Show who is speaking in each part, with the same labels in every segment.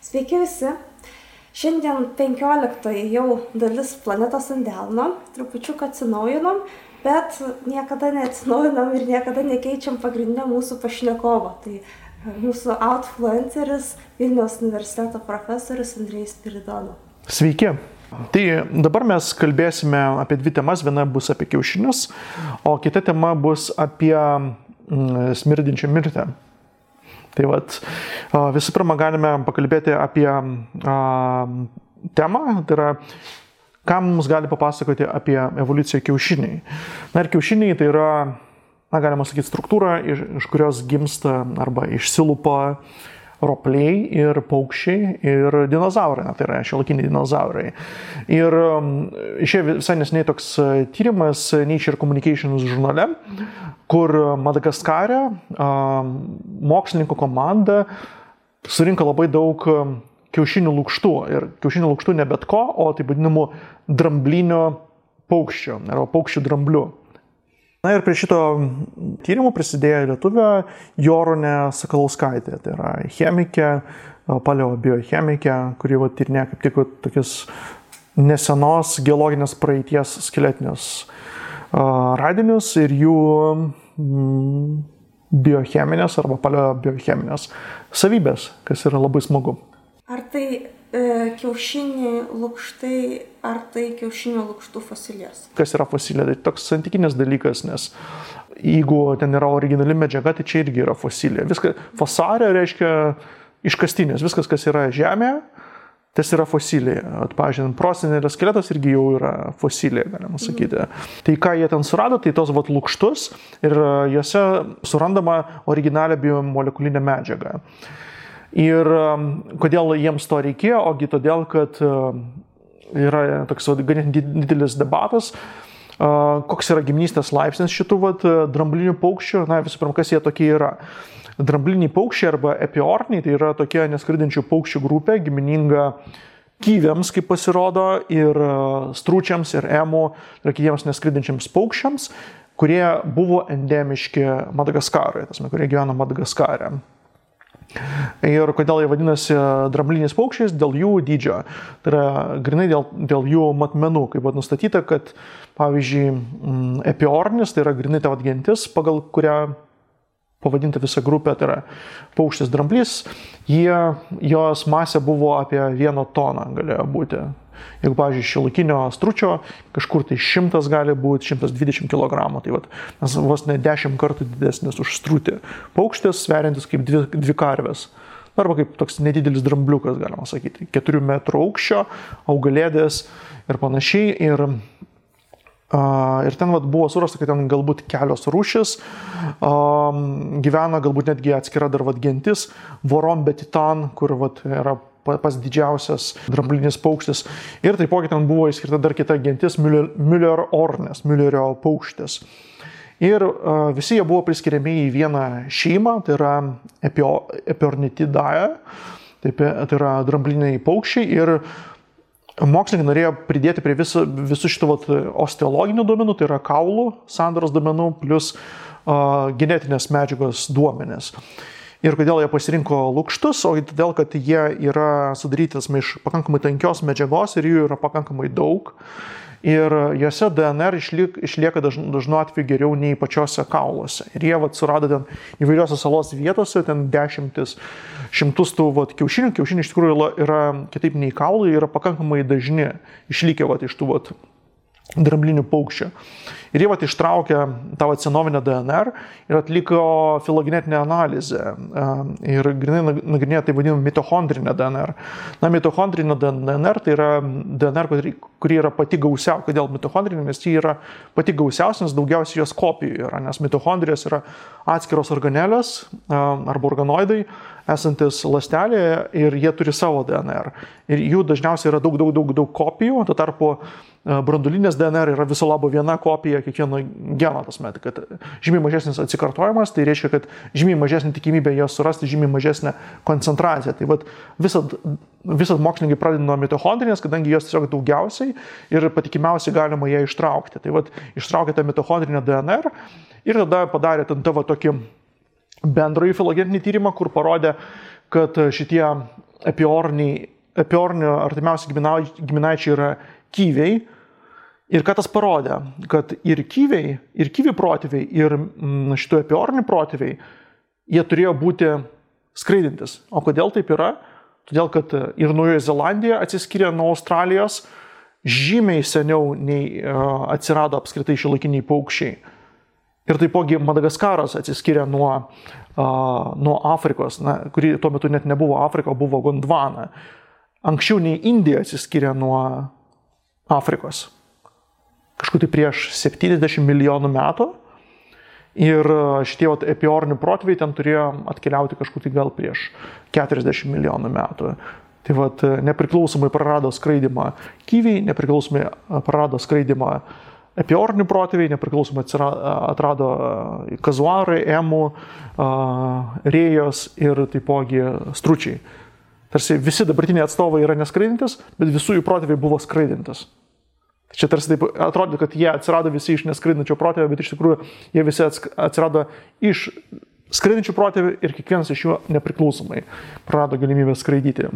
Speaker 1: Sveiki visi. Šiandien 15 jau dalis planetos ant delno, trupučiuką atsinaujinom, bet niekada neatsinaujinam ir niekada nekeičiam pagrindinio mūsų pašnekovo. Tai mūsų outfluenceris, Vilniaus universiteto profesorius Andrejus Spiridono.
Speaker 2: Sveiki. Tai dabar mes kalbėsime apie dvi temas. Viena bus apie kiaušinius, o kita tema bus apie smirdinčią mirtį. Tai vat, visų pirma galime pakalbėti apie temą, tai yra, ką mums gali papasakoti apie evoliuciją kiaušiniai. Na ir kiaušiniai tai yra, galima sakyti, struktūra, iš kurios gimsta arba išsilupa ropliai ir paukščiai ir dinozaurai, tai yra šiuolaikiniai dinozaurai. Ir išėjo visai neseniai toks tyrimas Nature Communications žurnale, kur Madagaskare mokslininkų komanda surinko labai daug kiaušinių lukštų. Ir kiaušinių lukštų ne bet ko, o taip vadinamų dramblinio paukščio, arba paukščių dramblių. Na ir prie šito tyrimų prisidėjo lietuvė Jorūnė Sakalauskaitė, tai yra chemikė, paleobiochemikė, kuri tyrinėja kaip tik tokius nesenos geologinės praeities skeletinius radinius ir jų biocheminės arba paleobiocheminės savybės, kas yra labai smagu.
Speaker 1: Ar tai kiaušiniai lukštai, ar tai kiaušinio lukštų fosilijos?
Speaker 2: Kas yra fosilija? Tai toks santykinis dalykas, nes jeigu ten yra originali medžiaga, tai čia irgi yra fosilija. Fosaria reiškia iškastinės. Viskas, kas yra žemėje, tas yra fosilija. Pavyzdžiui, prosenelio skeletas irgi jau yra fosilija, galima sakyti. Tai ką jie ten surado, tai tos lukštus ir juose surandama originalią biomolekulinę medžiagą. Ir kodėl jiems to reikėjo? Ogi todėl, kad yra toks ganėtinai didelis debatas, koks yra giminystės laipsnis šitų dramblinių paukščių. Na, visų pirma, kas jie tokie yra? Drambliniai paukščiai arba epiorniai, tai yra tokia neskridinčių paukščių grupė, gimininga kyviams, kaip pasirodo, ir stručiams, ir emų, ir kitiems neskridinčiams paukščiams, kurie buvo endemiški Madagaskarui, kurie gyvena Madagaskare. Ir kodėl jie vadinasi drambliniais paukščiais? Dėl jų dydžio. Tai yra grinai dėl jų matmenų, kaip buvo nustatyta, kad, pavyzdžiui, epiornis, tai yra grinai ta gentis, pagal kurią pavadinta visa grupė, tai yra paukštis dramblys, jos masė buvo apie 1 toną galėjo būti. Jeigu, pavyzdžiui, šiuolaikinio stručio kažkur tai 100 gali būti 120 kg, tai mes vos ne 10 kartų didesnis už strutį. Paukštis sveriantis kaip dvi karvės. Arba kaip toks nedidelis drambliukas, galima sakyti. 4 metrų aukščio, augalėdės ir panašiai. Ir ten buvo surasta, kad ten galbūt kelios rūšis gyvena, galbūt netgi atskira dar gentis, Vorombetitan, kur yra pas didžiausias dramblinis paukštis. Ir taipogi ten buvo įskirta dar kita gentis Müllerornis, Müllerio paukštis. Ir visi jie buvo priskiriami į vieną šeimą, tai yra Epiornithidae, tai yra drambliniai paukščiai. Ir mokslininkai norėjo pridėti prie visų šitų osteologinių duomenų, tai yra kaulų sandaros duomenų, plus genetinės medžiagos duomenės. Ir kodėl jie pasirinko lukštus? O todėl, kad jie yra sudarytas iš pakankamai tankios medžiagos ir jų yra pakankamai daug. Ir juose DNR išlieka dažnu atveju geriau nei pačiose kauluose. Ir jie surado ten įvairiose salos vietose, ten šimtus tų kiaušinių. Kiaušiniai iš tikrųjų yra kitaip nei kaulai, yra pakankamai dažni išlikę iš tų dramblinių paukščių. Ir jie ištraukė tą senovinę DNR ir atliko filogenetinę analizę. Ir grinai nagrinėjo tai vadinamą mitochondrinę DNR. Na, mitochondrinė DNR tai yra DNR, kuri yra pati gausiausia. Kodėl mitochondrinė? Nes ji yra pati gausiausia, nes daugiausiai jos kopijų yra. Nes mitochondrijos yra atskiros organelės arba organoidai esantis ląstelėje ir jie turi savo DNR. Ir jų dažniausiai yra daug kopijų, tuo tarpu branduolinės DNR yra viso labo viena kopija kiekvieno geno, kad žymiai mažesnis atsikartojimas, tai reiškia, kad žymiai mažesnė tikimybė jas surasti, žymiai mažesnė koncentracija. Tai visat mokslininkai pradeda nuo mitochondrinės, kadangi jos tiesiog daugiausiai ir patikimiausiai galima ją ištraukti. Tai ištraukė tą mitochondrinę DNR ir tada padarė tokį bendrąjį filogenetinį tyrimą, kur parodė, kad šitie epiornio artimiausi giminaičiai yra kyviai. Ir ką tas parodė, kad ir kyvių protėviai, ir šitų epiornių protėviai, jie turėjo būti skraidintis. O kodėl taip yra? Todėl, kad ir Naujoji Zelandija atsiskyrė nuo Australijos žymiai seniau nei atsirado apskritai šiuolaikiniai paukščiai. Ir taipogi Madagaskaras atsiskyrė nuo Afrikos, kuri tuo metu net nebuvo Afrika, buvo Gondvana. Anksčiau nei Indija atsiskyrė nuo Afrikos. Kažkur tai prieš 70 milijonų metų. Ir šitie epiornių protėviai ten turėjo atkeliauti kažkur tai gal prieš 40 milijonų metų. Tai nepriklausomai prarado skraidimą kyviai, nepriklausomai prarado skraidimą epiornių protėviai, nepriklausomai atrado kazuarai, emų, rėjos ir taipogi stručiai. Tarsi visi dabartiniai atstovai yra neskraidintis, bet visų jų protėviai buvo skraidintis. Čia tarsi taip atrodo, kad jie atsirado visi iš neskraidinčio protėvio, bet iš tikrųjų jie visi atsirado iš skraidinčių protėvių ir kiekvienas iš jų nepriklausomai prarado galimybę skraidyti.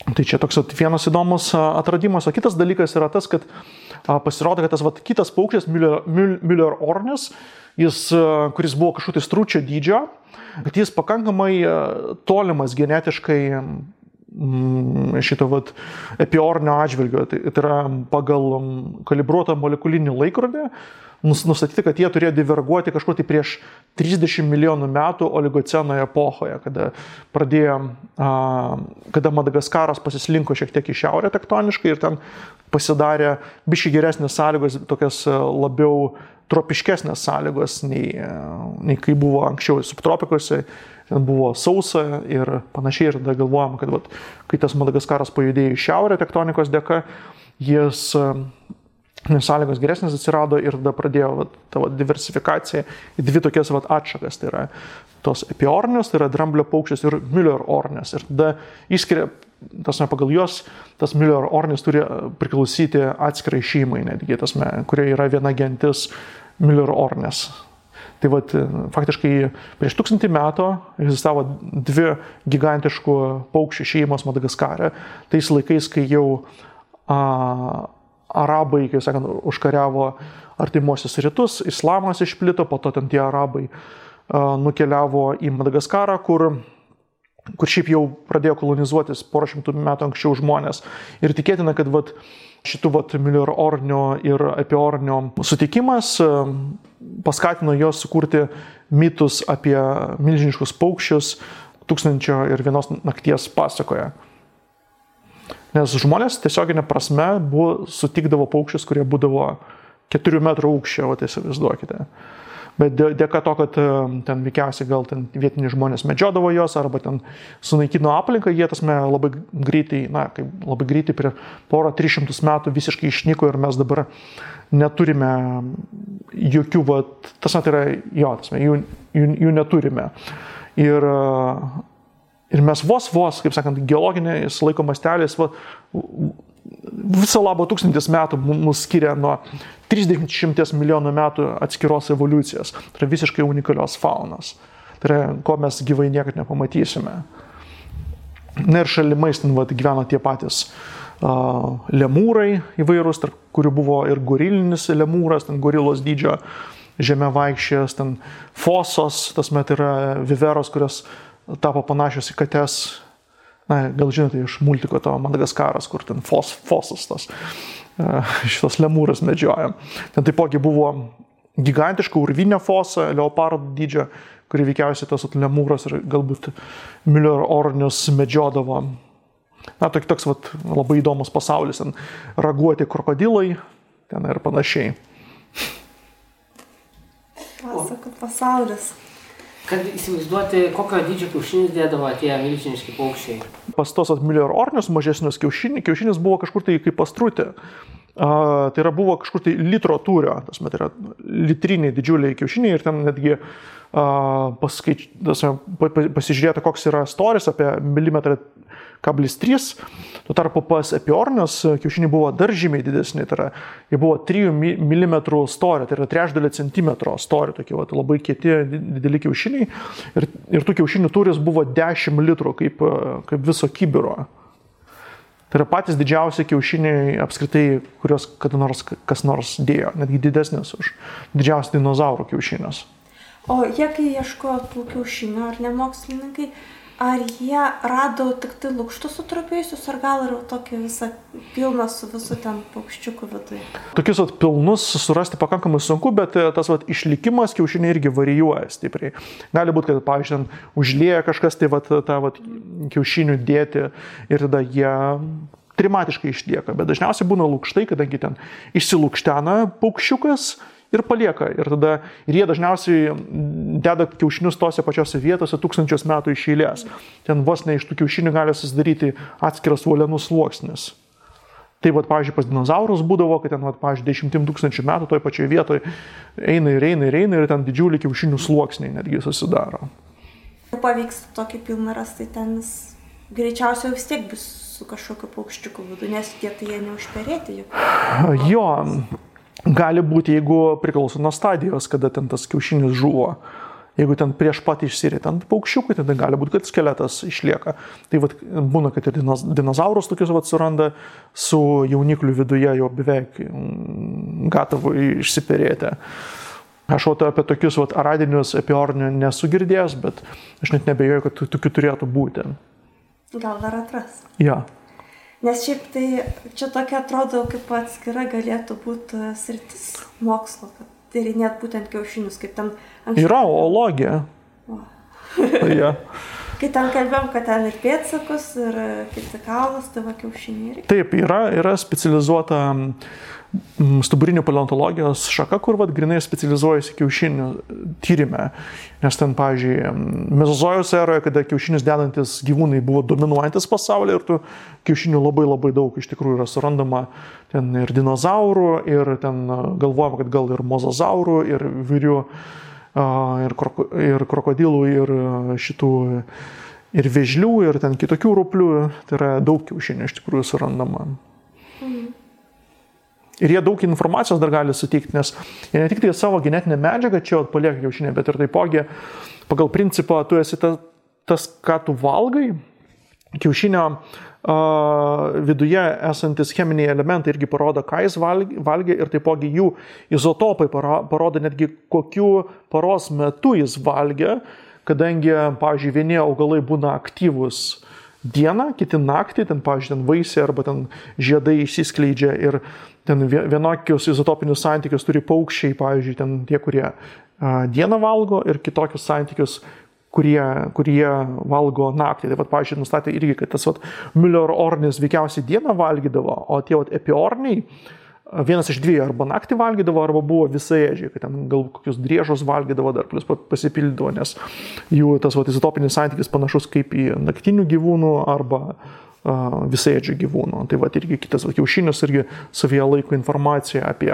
Speaker 2: Tai čia toks vienas įdomus atradimas. O kitas dalykas yra tas, kad pasirodo, kad tas kitas paukštis, Müller-Ornis, kuris buvo kažkokio stručio dydžio, kad jis pakankamai tolimas genetiškai šito epiornio atžvilgio. Tai yra pagal kalibruotą molekulinį laikrodį nustatyti, kad jie turėjo diverguoti kažkur tai prieš 30 milijonų metų oligoceno epochoje, kada Madagaskaras pasislinko šiek tiek į šiaurę tektoniškai ir ten pasidarė biškai geresnės sąlygos, tokias labiau tropiškesnės sąlygos nei kai buvo anksčiau subtropikuose. Ten buvo sausa ir panašiai, ir tada galvojama, kad kai tas Madagaskaras pajudėjo į šiaurę tektonikos dėka, sąlygos geresnės atsirado ir tada pradėjo tavo diversifikacija į dvi tokias atšakas. Tai yra tos epiornios, tai yra dramblio paukštis ir Müller-Ornis. Ir tada išskiria, pagal juos, tas Müller-Ornis turi priklausyti atskirai šeimai, netgi, kurioje yra viena gentis Müller-Ornis. Tai faktiškai prieš 1000 metų egzistavo dvi gigantiškų paukščių šeimos Madagaskare. Tais laikais, kai jau arabai, kaip sakant, užkariavo artimuosius rytus, islamas išplito, po to ten tie arabai nukeliavo į Madagaskarą, kur šiaip jau pradėjo kolonizuotis porą šimtų metų anksčiau žmonės. Ir tikėtina, kad šitų Müller-Ornio ir epiornio sutikimas paskatino jos sukurti mitus apie milžiniškus paukščius 1001 nakties pasakoje. Nes žmonės tiesioginė prasme sutikdavo paukščius, kurie būdavo 4 metrų aukščio, įsivaizduokite. Bet dėka to, kad ten veikiausiai gal ten vietiniai žmonės medžiodavo jos arba ten sunaikino aplinką, jie labai greitai prie porą 300 metų visiškai išnyko ir mes dabar neturime jokių, jų neturime. Ir mes vos, kaip sakant, geologiniais laiko masteliais viso labo 1000 metų mus skiria nuo 30 milijonų metų atskiros evoliucijos. Tai yra visiškai unikalios faunos. Tai yra, ko mes gyvai niekad nepamatysime. Ir šalimais gyveno tie patys lemūrai įvairūs, tarp kurių buvo ir gorilinis lemūras, ten gorilos dydžio žeme vaikščias, ten fosos, yra viveros, kurios tapo panašios į kates. Gal žinote iš multiko to Madagaskaras, kur ten fosas šitos lemūras medžioja. Ten taipogi buvo gigantiška urvinė fosa, leopardų dydžio, kuri veikiausiai tas lemūras ir galbūt Müller-Ornius medžiodavo. Toks labai įdomus pasaulis, ten raguoti krokodilai, ten ir panašiai.
Speaker 1: Pasakot pasaulis.
Speaker 3: Kad įsivaizduoti, kokio dydžio kiaušinis dėdavo tie milžiniški paukščiai.
Speaker 2: Pas tos Müller-Ornius mažesnius kiaušinis buvo kažkur tai kaip pastrutė. Tai yra buvo kažkur tai litro tūrio, tai yra litriniai didžiuliai kiaušiniai ir ten netgi pasižiūrėta, koks yra storis apie 1,3 mm. Tuo tarpu pas epiornius kiaušiniai buvo dar žymiai didesni, tai yra, jie buvo 3 mm storio, tai yra 0,3 centimetro storio, tokie labai kieti dideli kiaušiniai ir tų kiaušinių tūris buvo 10 litrų kaip viso kibiro. Tai yra patys didžiausi kiaušiniai apskritai, kurios kada nors kas nors dėjo, netgi didesnės už didžiausių dinozaurų kiaušinius.
Speaker 1: O jie, kai ieškojo tų kiaušinių, ar ne mokslininkai, ar jie rado tik tai lukštus sutrupėjusius, ar gal ir tokį visą pilną su visu ten paukščiukų viduje?
Speaker 2: Tokius pilnus surasti pakankamai sunku, bet tas išlikimas kiaušiniai irgi varijuoja stipriai. Gali būti, kad, pavyzdžiui, užlieja kažkas tai tą kiaušinių dėti ir tada jie trimatiškai išlieka, bet dažniausiai būna lukštai, kadangi ten išsilukštena paukščiukas ir palieka. Ir jie dažniausiai deda kiaušinius tose pačiose vietose tūkstančius metų iš eilės. Ten vos ne iš tų kiaušinių gali susidaryti atskiras uolienų sluoksnis. Tai, pavyzdžiui, pas dinozaurus būdavo, kad ten, pavyzdžiui, 10 000 metų toj pačioje vietoje eina ir ten didžiulį kiaušinių sluoksniai netgi susidaro.
Speaker 1: Pavyks tokį pilną rasti, ten greičiausiai vis tiek bus su kažkokiu paukščiuku vidu, nes tie tai jie neužperėti juk.
Speaker 2: Jo. Gali būti, jeigu priklauso nuo stadijos, kada ten tas kiaušinis žuvo. Jeigu ten prieš pat išsirita ant paukščiukų, tada gali būti, kad skeletas išlieka. Tai būna, kad ir dinozaurus tokius suranda su jaunikliu viduje jau beveik gatavų išsiperėti. Aš apie tokius aradinius epiornių nesu girdėjęs, bet aš net nebejoju, kad tokių turėtų būti.
Speaker 1: Gal dar atras.
Speaker 2: Ja.
Speaker 1: Nes šiaip tai čia tokia atrodo, kaip atskira galėtų būti sritis mokslo, kad tyrinėt būtent kiaušinius, kaip ten anksčiau. Yra
Speaker 2: oologija. Ja.
Speaker 1: Kai ten kalbėjom, kad ten ir pėdsakus, ir kiti kaulas, tai kiaušiniai.
Speaker 2: Taip, yra specializuota stuburinių paleontologijos šaka, kur grinai specializuojasi kiaušinių tyrime. Nes ten, pavyzdžiui, Mezozojus eroje, kada kiaušinius dedantis gyvūnai buvo dominuojantis pasaulyje ir tų kiaušinių labai labai daug iš tikrųjų yra surandama ten ir dinozaurų, ir ten galvojama, kad gal ir mozozaurų, ir vyrių, ir krokodilų, ir šitų, ir vėžlių, ir ten kitokių ruplių. Tai yra daug kiaušinių iš tikrųjų surandama. Ir jie daug informacijos dar gali suteikti, nes jie ne tik tai savo genetinę medžiagą čia palieka kiaušinį, bet ir taipogi pagal principą tu esi tas, ką tu valgai, kiaušinio viduje esantis cheminiai elementai irgi parodo, ką jis valgė ir taipogi jų izotopai parodo netgi kokiu paros metu jis valgė, kadangi, pavyzdžiui, vieni augalai būna aktyvus dieną, kiti naktį, ten, pavyzdžiui, ten vaisiai arba ten žiedai išsiskleidžia ir ten vienokius izotopinius santykius turi paukščiai, pavyzdžiui, ten tie, kurie dieną valgo ir kitokius santykius, kurie valgo naktį. Tai, pavyzdžiui, nustatė irgi, kad tas Müller-ornis veikiausiai dieną valgydavo, o tie epiorniai vienas iš dviejų arba naktį valgydavo, arba buvo visaėdžiai, kad ten gal kokius driežus valgydavo dar, plus pasipildydavo, nes jų tas izotopinis santykis panašus kaip į naktinių gyvūnų arba visaėdžių gyvūnų. Tai irgi kitas kiaušinius irgi savyje laiko informaciją apie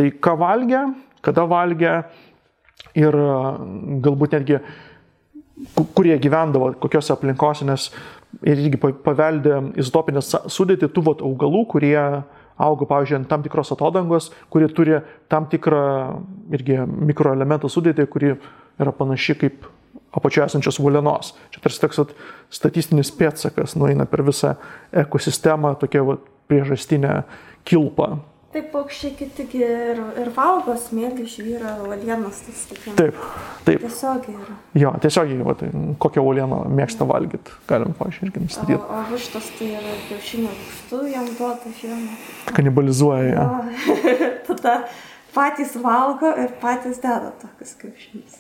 Speaker 2: tai, ką valgė, kada valgė ir galbūt netgi kurie gyvendavo, kokiose aplinkose, nes ir irgi paveldė izotopinės sudėtį tų augalų, kurie auga, pavyzdžiui, ant tam tikros atodangos, kurie turi tam tikrą irgi mikroelementų sudėtį, kuri yra panaši kaip apačioje esančios uolienos. Čia tarsi toks statistinis pėdsakas nueina per visą ekosistemą, tokia priežastinė kilpa.
Speaker 1: Taip, paukščiai kitigi ir valgo smėlį, žvyrą, uolienas.
Speaker 2: Taip.
Speaker 1: Tiesiogiai yra.
Speaker 2: Jo, tiesiogiai, kokią uolieną mėgsta valgyti, galim, pavyzdžiui, irgi nustatyti.
Speaker 1: O vištos tai yra kiaušinio lukštų, jam duota žiemą.
Speaker 2: Kanibalizuoja ją.
Speaker 1: Tada patys valgo ir patys deda tokius kiaušinius.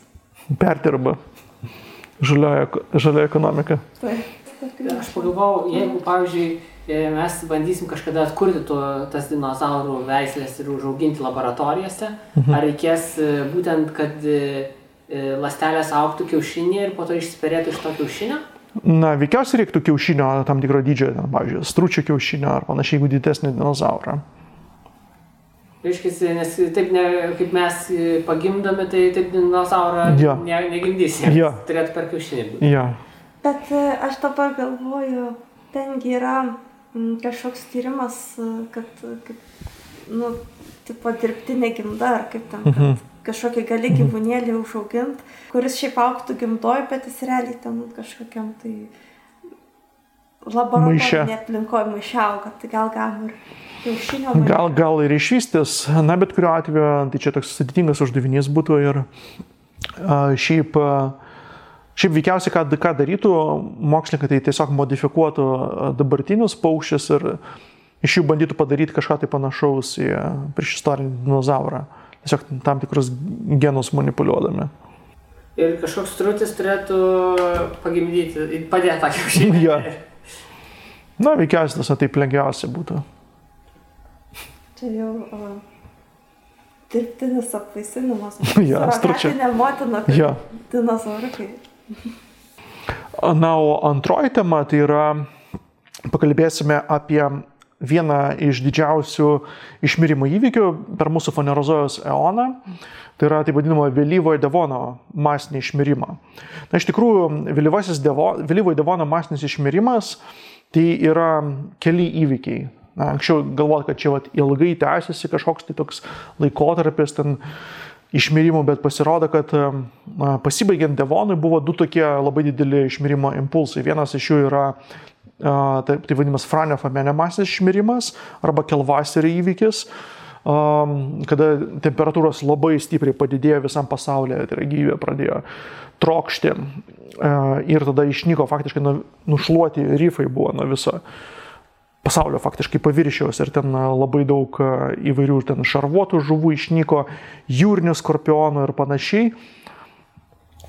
Speaker 2: Perdirba. Žalia ekonomika.
Speaker 1: Taip.
Speaker 3: Aš pagalvojau, jeigu, pavyzdžiui, mes bandysim kažkada atkurti tas dinozaurų veislės ir užauginti laboratorijose, ar reikės būtent, kad ląstelės augtų kiaušinį ir po to išsiperėtų iš to kiaušinio?
Speaker 2: Na, veikiausiai reiktų kiaušinio tam tikro dydžio, pavyzdžiui, stručio kiaušinio ar panašiai, jeigu didesnį dinozaurą.
Speaker 3: Reiškia, nes taip kaip mes pagimdome, tai taip dinozaurą negimdysi. Turėtų per kiaušinį būti.
Speaker 1: Bet aš dabar galvoju, tengi yra kažkoks tyrimas, kad tipo dirbtinė gimda, ar kaip ten, kad kažkokį gali gyvūnėlį užaugint, kuris šiaip augtų gimdoj, bet jis realiai ten kažkokiam tai laboratorinė aplinkoje maiše auga, tai gal ir kiaušinio maiše.
Speaker 2: Gal ir išvystys, na bet kuriuo atveju, tai čia toks sudėtingas uždavinys būtų ir šiaip veikiausiai, ką darytų mokslininkai, tai tiesiog modifikuotų dabartinius paukščius ir iš jų bandytų padaryti kažką tai panašaus į priešistorinį dinozaurą. Tiesiog tam tikrus genus manipuliuodami.
Speaker 3: Ir kažkoks strutis turėtų pagimdyti, padėti tą kiaušinį.
Speaker 2: Na, veikiausiai tas taip lengviausia būtų.
Speaker 1: Čia jau dirbtinis apvaisinimas.
Speaker 2: Suragatinė
Speaker 1: motina, kaip dinozauriukai.
Speaker 2: Na, o antroji tema tai yra, pakalbėsime apie vieną iš didžiausių išmirimo įvykių per mūsų Fanerozojaus eoną. Tai yra taip vadinamo vėlyvojo Devono masinį išmirimą. Na, iš tikrųjų, vėlyvojo Devono masinis išmirimas tai yra keli įvykiai. Na, anksčiau galvoti, kad čia ilgai tęsiasi kažkoks tai toks laikotarpis ten išmirimų, bet pasirodo, kad pasibaigiant Devonui buvo du tokie labai dideli išmirimo impulsai. Vienas iš jų yra tai vadinamas Franio-Famene masinis išmirimas arba Kelvaserio įvykis, kada temperatūros labai stipriai padidėjo visam pasaulyje, tai gyvybė pradėjo trokšti ir tada išnyko faktiškai nušluoti rifai buvo nuo viso pasaulio faktiškai paviršiaus ir ten labai daug įvairių ten šarvuotų žuvų išnyko, jūrinių skorpionų ir panašiai.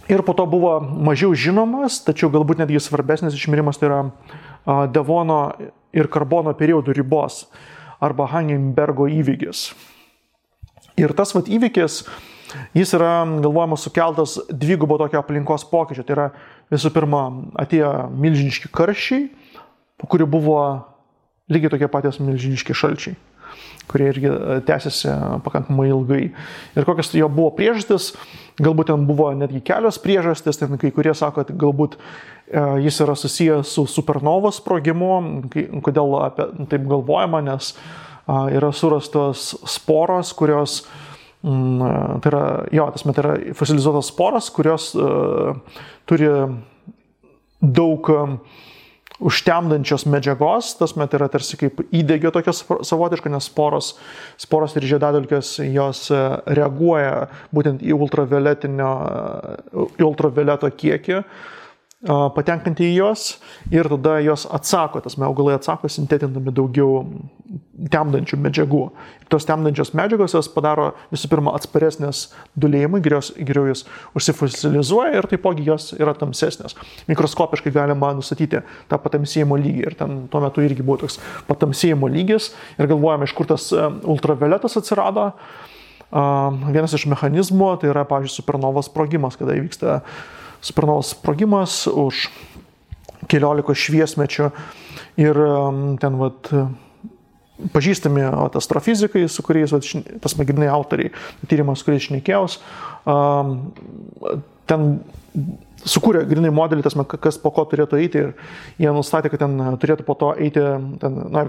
Speaker 2: Ir po to buvo mažiau žinomas, tačiau galbūt netgi svarbesnis išmirimas, tai yra Devono ir Karbono periodų ribos arba Hangenbergo įvykis. Ir tas įvykis, jis yra, galvojama, sukeltas dvigubo tokio aplinkos pokyčio. Tai yra, visų pirma, atėjo milžiniški karščiai, po kurių buvo lygiai tokie patys milžiniški šalčiai, kurie irgi tęsiasi pakankamai ilgai. Ir kokios jo buvo priežastis, galbūt ten buvo netgi kelios priežastis, ten kai kurie sako, kad galbūt jis yra susijęs su supernovos sprogimu. Kodėl taip galvojama, nes yra surastos sporos, kurios, tai yra fosilizuotos sporos, kurios turi daug užtemdančios medžiagos, tai yra tarsi kaip įdegio tokios savotiško, nes sporos ir žiedadulkės jos reaguoja būtent į ultravioleto kiekį, patenkantį į jos ir tada jos atsako, augalai atsako sintetindami daugiau temdančių medžiagų. Ir tos temdančios medžiagos jos padaro visų pirma atsparesnės dūlėjimui, geriau jos užsifosilizuoja ir taipogi jos yra tamsesnės. Mikroskopiškai galima nustatyti tą patamsėjimo lygį ir ten tuo metu irgi buvo toks patamsėjimo lygis ir galvojame, iš kur tas ultravioletas atsirado. Vienas iš mechanizmų tai yra, pavyzdžiui, supernovos sprogimas, kada įvyksta supernovos sprogimas už keliolikos šviesmečių ir ten pažįstami astrofizikai, su kuriais tas grynai autoriai, tyrimas, kuriais šnekėjaus, ten sukūrė grynai modelį, kas po ko turėtų eiti ir jie nustatė, kad ten turėtų po to eiti,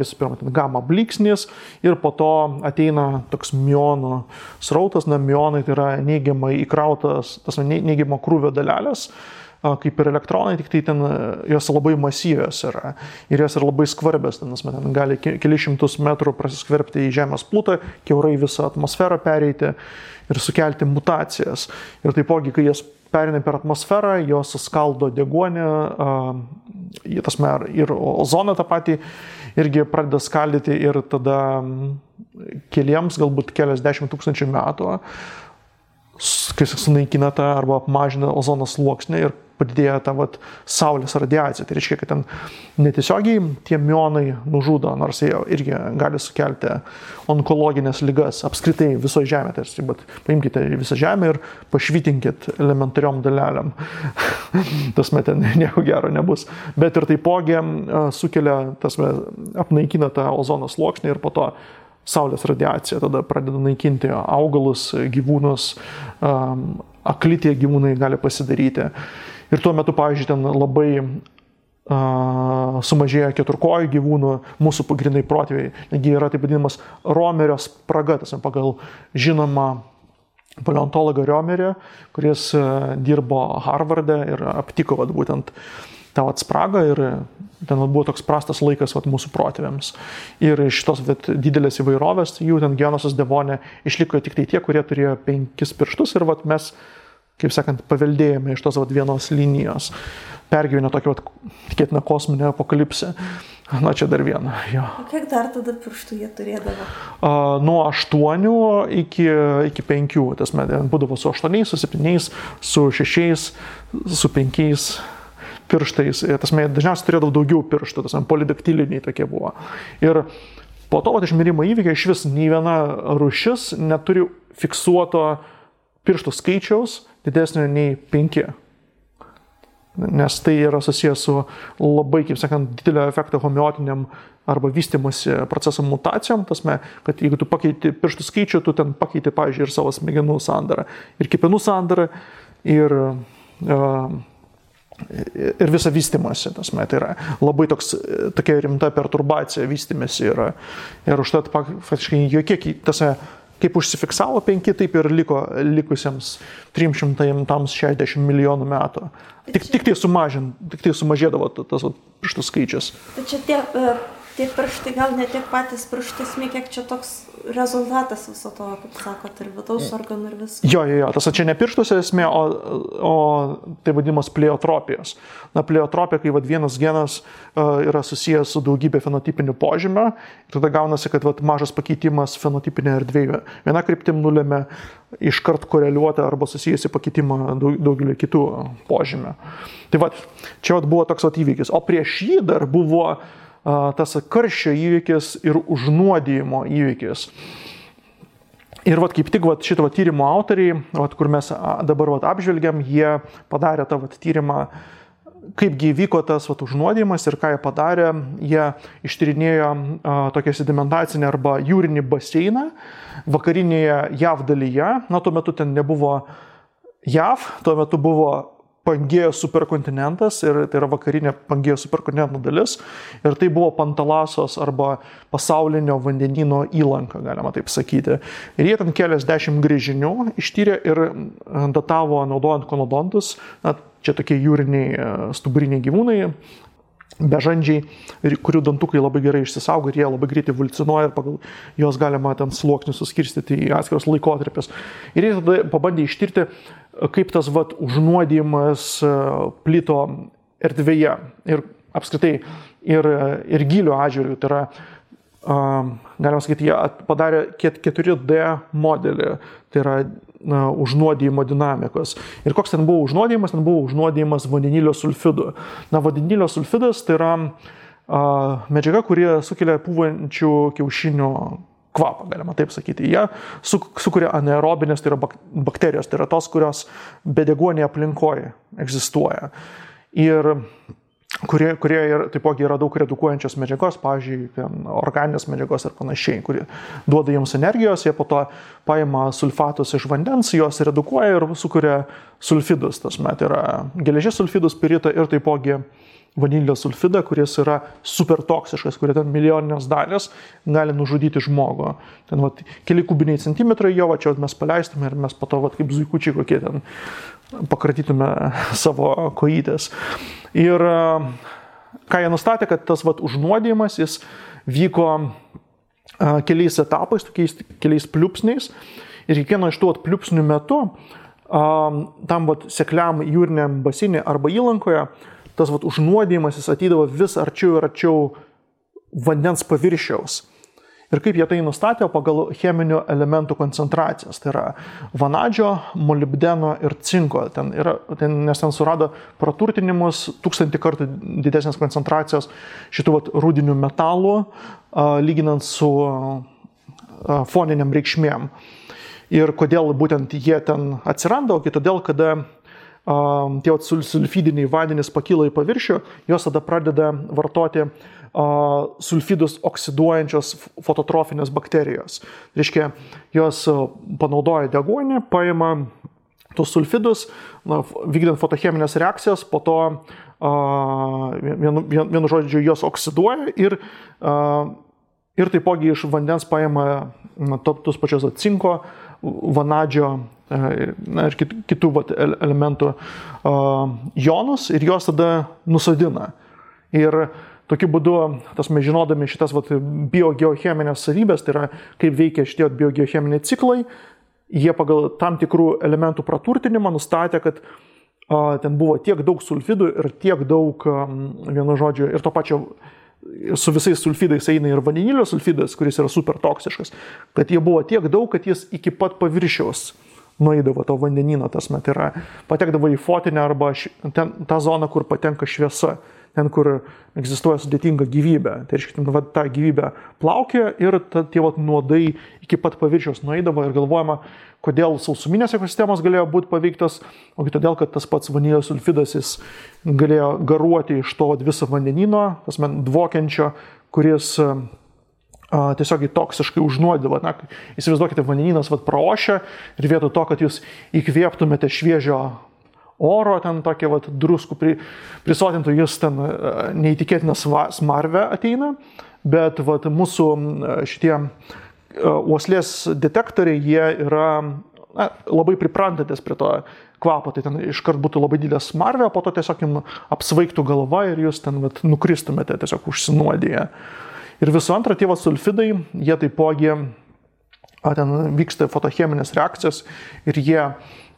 Speaker 2: visų pirma, gamma blyksnis ir po to ateina toks mionų srautas, mionai tai yra neigiamai įkrautas, neigiamo krūvio dalelės, kaip ir elektronai, tik tai ten jos labai masyvios yra ir jos yra labai skvarbios, ten gali kelius šimtus metrų prasiskverbti į Žemės plutą, kiaurai visą atmosferą pereiti ir sukelti mutacijas. Ir taipogi, kai jas perina per atmosferą, jos skaldo deguonį, ir ozoną tą patį irgi pradeda skaldyti ir tada keliems, galbūt keliasdešimt tūkstančių metų kai sunaikina tą arba apmažina ozono sluoksnį ir padidėja ta saulės radiacija. Tai reiškia, kad ten netiesiogiai tie mionai nužudo, nors jie irgi gali sukelti onkologinės ligas apskritai visoje žemėje. Tarsi, bet paimkite visą žemę ir pašvitinkit elementariom dalelėm. Tasme, ten nieko gero nebus. Bet ir taipogi sukelia, apnaikina tą ozono sluoksnį ir po to saulės radiacija tada pradeda naikinti augalus, gyvūnus, akli tie gyvūnai gali pasidaryti. Ir tuo metu, pavyzdžiui, ten labai sumažėja keturkojų gyvūnų, mūsų pagrindai protėviai. Negi yra taip vadinamas Romerio spraga, pagal žinomą paleontologą Romerį, kuris dirbo Harvarde ir aptiko būtent tą spragą ir ten buvo toks prastas laikas mūsų protėviams. Ir iš tos didelės įvairovės, jų ten Genosas Devone išliko tik tai tie, kurie turėjo 5 pirštus ir mes, kaip sakant, paveldėjome iš tos vienos linijos. Pergyvenę tokią, tikėtina, kosminę apokalipsę. Na, čia dar viena. Jo.
Speaker 1: O kiek dar tada pirštų jie turėdavo?
Speaker 2: Nuo 8 iki 5. Tas būdavo su 8, su 7, su 6, su 5 pirštais. Dažniausiai turėdavo daugiau pirštų, polidaktiliniai tokie buvo. Ir po to išmirimo įvykio iš vis nei viena rūšis neturi fiksuoto pirštų skaičiaus didesnio nei 5. Nes tai yra susijęs su labai, kaip sakant, didelio efekto homeotiniam arba vystymosi proceso mutacijom. Kad jeigu tu pakeiti pirštų skaičių, tu ten pakeiti, pavyzdžiui, ir savo smegenų sandarą, ir kepenų sandarą, ir visą vystymosi. Tai yra labai tokia rimta perturbacija vystymėsi yra. Ir užtat faktiškai jokie, kaip užsifiksavo 5, taip ir liko likusiems 360 milijonų metų. Tik tai sumažėdavo tas pirštų skaičius.
Speaker 1: Tai čia tie pirštai, gal ne tiek patys pirštai, kiek čia toks rezultatas viso to, kaip sakot, ir vidaus organų ir viskas.
Speaker 2: Jo, čia ne pirštuose esmė, o tai vadinamas pleotropijos. Pleotropija, kai vienas genas yra susijęs su daugybė fenotipinių požymių, tada gaunasi, kad mažas pakeitimas fenotipinė erdvėje viena kryptim nulėmė iškart koreliuoti arba susijusi pakeitimą daugelį kitų požymių. Tai čia buvo toks įvykis. O prieš jį dar buvo tas karščio įvykis ir užnuodijimo įvykis. Ir kaip tik šito tyrimo autoriai, kur mes dabar apžvelgiam, jie padarė tą tyrimą, kaipgi vyko tas užnuodijimas ir ką jie padarė. Jie ištyrinėjo tokią sedimentacinę arba jūrinį baseiną vakarinėje JAV dalyje. Tuo metu ten nebuvo JAV, tuo metu buvo Pangėjos superkontinentas ir tai yra vakarinė Pangėjos superkontinento dalis ir tai buvo Pantalasos arba pasaulinio vandenyno įlanka, galima taip sakyti. Ir jie ten keliasdešimt gręžinių ištyrė ir datavo naudojant konodontus, čia tokie jūriniai stuburiniai gyvūnai, bežandžiai, kurių dantukai labai gerai išsisaugo ir jie labai greitai evoliucionuoja ir pagal juos galima ten sluoksnius suskirstyti į atskiros laikotarpius. Ir jie tada pabandė ištirti, kaip tas užnuodijimas plito erdvėje ir apskritai ir gylio atžvilgiu. Tai yra, galima sakyti, jie padarė 4D modelį, tai yra užnuodijimo dinamikos. Ir koks ten buvo užnuodijimas? Ten buvo užnuodijimas vandenilio sulfidu. Vandenilio sulfidas tai yra medžiaga, kurie sukelia pūvančių kiaušinių kvapą, galima taip sakyti. Jie sukuria anaerobinės, tai yra bakterijos, tai yra tos, kurios bedeguonėje aplinkoje egzistuoja. Ir kurie taipogi yra daug redukuojančios medžiagos, pavyzdžiui, organinės medžiagos ir panašiai, kurie duoda jiems energijos, jie po to paima sulfatus iš vandens, juos redukuoja ir sukuria sulfidus. Tai yra geležies sulfidus, spiritą ir taipogi vanilio sulfidą, kuris yra super toksiškas, kurie ten milijoninės dalys gali nužudyti žmogų. Ten keli kubiniai centimetrai jo, čia mes paleistume ir mes po to kaip zuikučiai kokie ten pakratytume savo kojytės. Ir ką jie nustatė, kad tas užnuodijimas jis vyko keliais etapais, keliais pliūpsniais ir kiekvieno iš tų pliūpsnių metu tam sekliam jūriniam baseinė arba įlankoje tas užnuodijimas jis ateidavo vis arčiau ir arčiau vandens paviršiaus. Ir kaip jie tai nustatė pagal cheminių elementų koncentracijas. Tai yra vanadžio, molibdeno ir cinko. Nes ten surado praturtinimus 1000 kartų didesnės koncentracijos šitų rūdinių metalų, lyginant su foniniam reikšmėm. Ir kodėl būtent jie ten atsiranda, o todėl, kada tie sulfidiniai vandenys pakyla į paviršių, jos tada pradeda vartoti sulfidus oksiduojančios fototrofinės bakterijos. Reiškia, jos panaudoja deguonį, paima tus sulfidus, vykdant fotocheminės reakcijas, po to vienu žodžiu jos oksiduoja ir taipogi iš vandens paima tus pačios cinko, vanadžio ir kitų elementų jonus ir jos tada nusodina. Ir tokiu būdu, žinodami šitas biogeocheminės savybės, tai yra kaip veikia šitie biogeocheminiai ciklai, jie pagal tam tikrų elementų praturtinimą nustatė, kad ten buvo tiek daug sulfidų ir tiek daug, vienu žodžiu, ir to pačio su visais sulfidais eina ir vandenilio sulfidas, kuris yra super toksiškas, kad jie buvo tiek daug, kad jis iki pat paviršiaus nueidavo to vandenyno, tai yra patekdavo į fotinę arba tą zoną, kur patenka šviesa. Ten, kur egzistuoja sudėtinga gyvybė. Tai reiškia, ta gyvybė plaukė ir tie nuodai iki pat paviršiaus nueidavo ir galvojama, kodėl sausuminės ekosistemos galėjo būti paveiktas, o todėl, kad tas pats vanilio sulfidas jis galėjo garuoti iš to viso vandenino, dvokiančio, kuris tiesiog toksiškai užnuodavo. Įsivaizduokite, vandeninas praošia ir vietoj to, kad jūs įkvėptumėte šviežio oro, ten tokie druskų prisotintų, jis ten neįtikėtina smarvė ateina, bet mūsų šitie uoslės detektoriai, jie yra labai priprantantis prie to kvapo, tai ten iškart būtų labai didelė smarvė, po to tiesiog jums apsvaigtų galva ir jūs ten nukristumėte tiesiog užsinuodiję. Ir visų antra, tie sulfidai, jie taipogi, ten vyksta fotocheminės reakcijos ir jie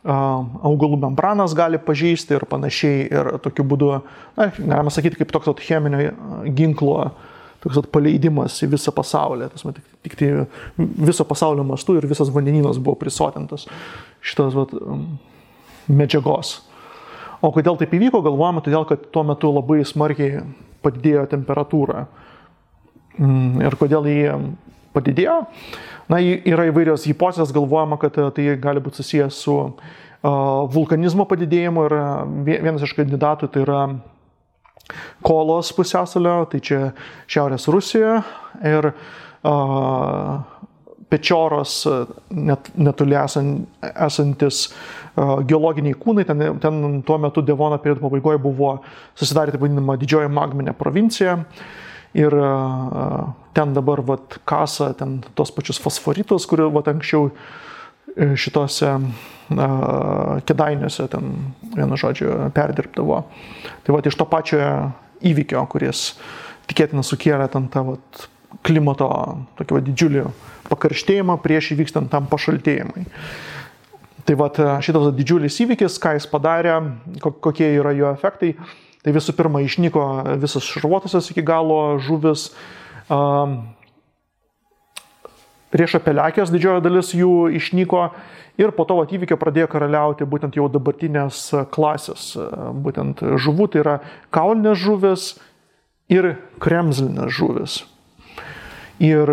Speaker 2: augalų membranas gali pažeisti ir panašiai. Ir tokiu būdu, galima sakyti, kaip toks cheminio ginklo toks paleidimas į visą pasaulį. Tik tai viso pasaulio mastu ir visas vandenynas buvo prisotintas šitos medžiagos. O kodėl taip įvyko, galvojame, todėl, kad tuo metu labai smarkiai padidėjo temperatūra. Ir kodėl jį padidėjo? Yra įvairios hipotezės, galvojama, kad tai gali būti susijęs su vulkanizmo padidėjimu ir vienas iš kandidatų tai yra Kolos pusiasalio, tai čia Šiaurės Rusijoje ir Pečioros netoli esantis geologiniai kūnai, ten tuo metu Devono periodo pabaigoje buvo susidarė taip vadinama didžioji magminė provincija. Ir ten dabar kasa tos pačius fosforitus, kurių anksčiau šitose Kėdainiuose vienu žodžiu perdirbdavo. Tai iš to pačio įvykio, kuris tikėtina sukėlė tą klimato tokį didžiulį pakarštėjimą prieš įvykstant tam pašaltėjimui. Tai šitas didžiulis įvykis, ką jis padarė, kokie yra jo efektai. Tai visų pirma, išnyko visas šarvuotosios iki galo žuvis, riešapelekės didžioji dalis jų išnyko ir po to įvykio pradėjo karaliauti būtent jau dabartinės klasės, būtent žuvų, tai yra kaulinės žuvis ir kremzlinės žuvis. Ir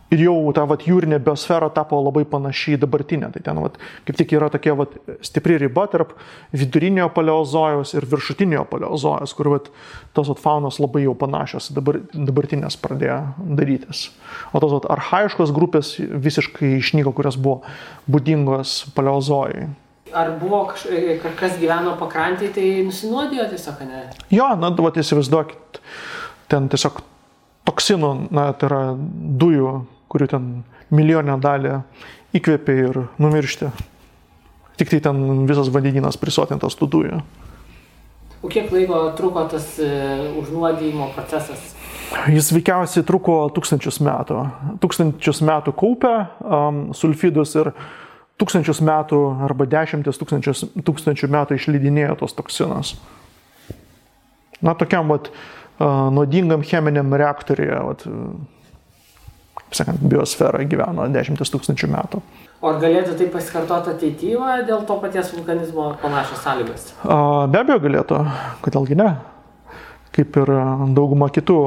Speaker 2: jau ta jūrinė biosfera tapo labai panašiai dabartinė. Tai ten kaip tik yra tokia stipri riba tarp vidurinio paleozojaus ir viršutinio paleozojaus, kur tos faunos labai jau panašios dabartinės pradėjo darytis. O tos archaiškos grupės visiškai išnyko, kurios buvo būdingos paleozojui.
Speaker 3: Ar buvo kas gyveno pakrantėje, tai nusinuodijo tiesiog, ne?
Speaker 2: Jo, įsivaizduokit, ten tiesiog toksinų, tai yra dujų, kurių ten milijonę dalį įkvėpė ir numiršti. Tik tai ten visas vandenynas prisotintas tų dujų.
Speaker 3: O kiek laiko truko tas užnuodijimo procesas?
Speaker 2: Jis veikiausiai truko 1000 metų. 1000 metų kaupė sulfidus ir 1000 metų arba 10 tūkstančių metų išleidinėjo tos toksinas. Tokiam nuodingam cheminiam reaktoriuje sakant, biosfera gyveno 10 000 metų.
Speaker 3: O ar galėtų tai pasikartoti ateityje dėl to paties vulkanizmo panašios sąlygos?
Speaker 2: Be abejo galėtų, kodėlgi ne. Kaip ir dauguma kitų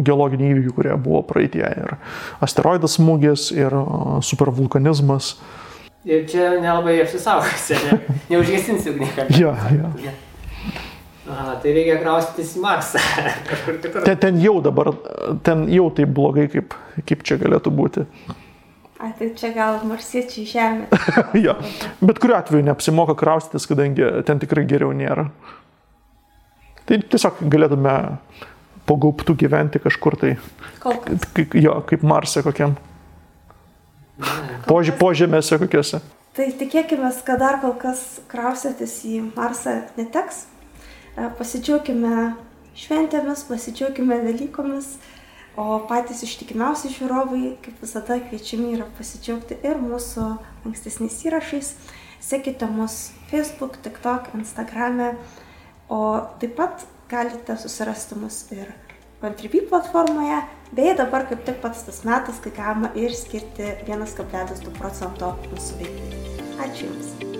Speaker 2: geologinių įvykių, kurie buvo praeitie. Ir asteroidas smūgis, ir supervulkanizmas.
Speaker 3: Ir čia nelabai apsisaugosi, neužgesinsi ugnikalnio.
Speaker 2: Ja.
Speaker 3: Tai reikia kraustytis į Marsą.
Speaker 2: Ten jau taip blogai, kaip čia galėtų būti.
Speaker 1: Tai čia gal marsiečiai Žemė.
Speaker 2: Ja. Bet kuriuo atveju neapsimoka kraustytis, kadangi ten tikrai geriau nėra. Tai tiesiog galėtume po gaubtų gyventi kažkur tai.
Speaker 1: Kol kas.
Speaker 2: Kaip Marse kokiam. Požemėse kokiuose.
Speaker 1: Tai tikėkime, kad dar kol kas kraustytis į Marsą neteks. Pasidžiaukime šventėmis, pasidžiaukime Velykomis, o patys ištikimiausi žiūrovai, kaip visada, kviečiami yra pasidžiaugti ir mūsų ankstesniais įrašais. Sekite mus Facebook, TikTok, Instagrame, o taip pat galite susirasti mus ir Contribui platformoje, bei dabar kaip tik pats tas metas, kai galima ir skirti 1,2% mūsų veiklai. Ačiū Jums.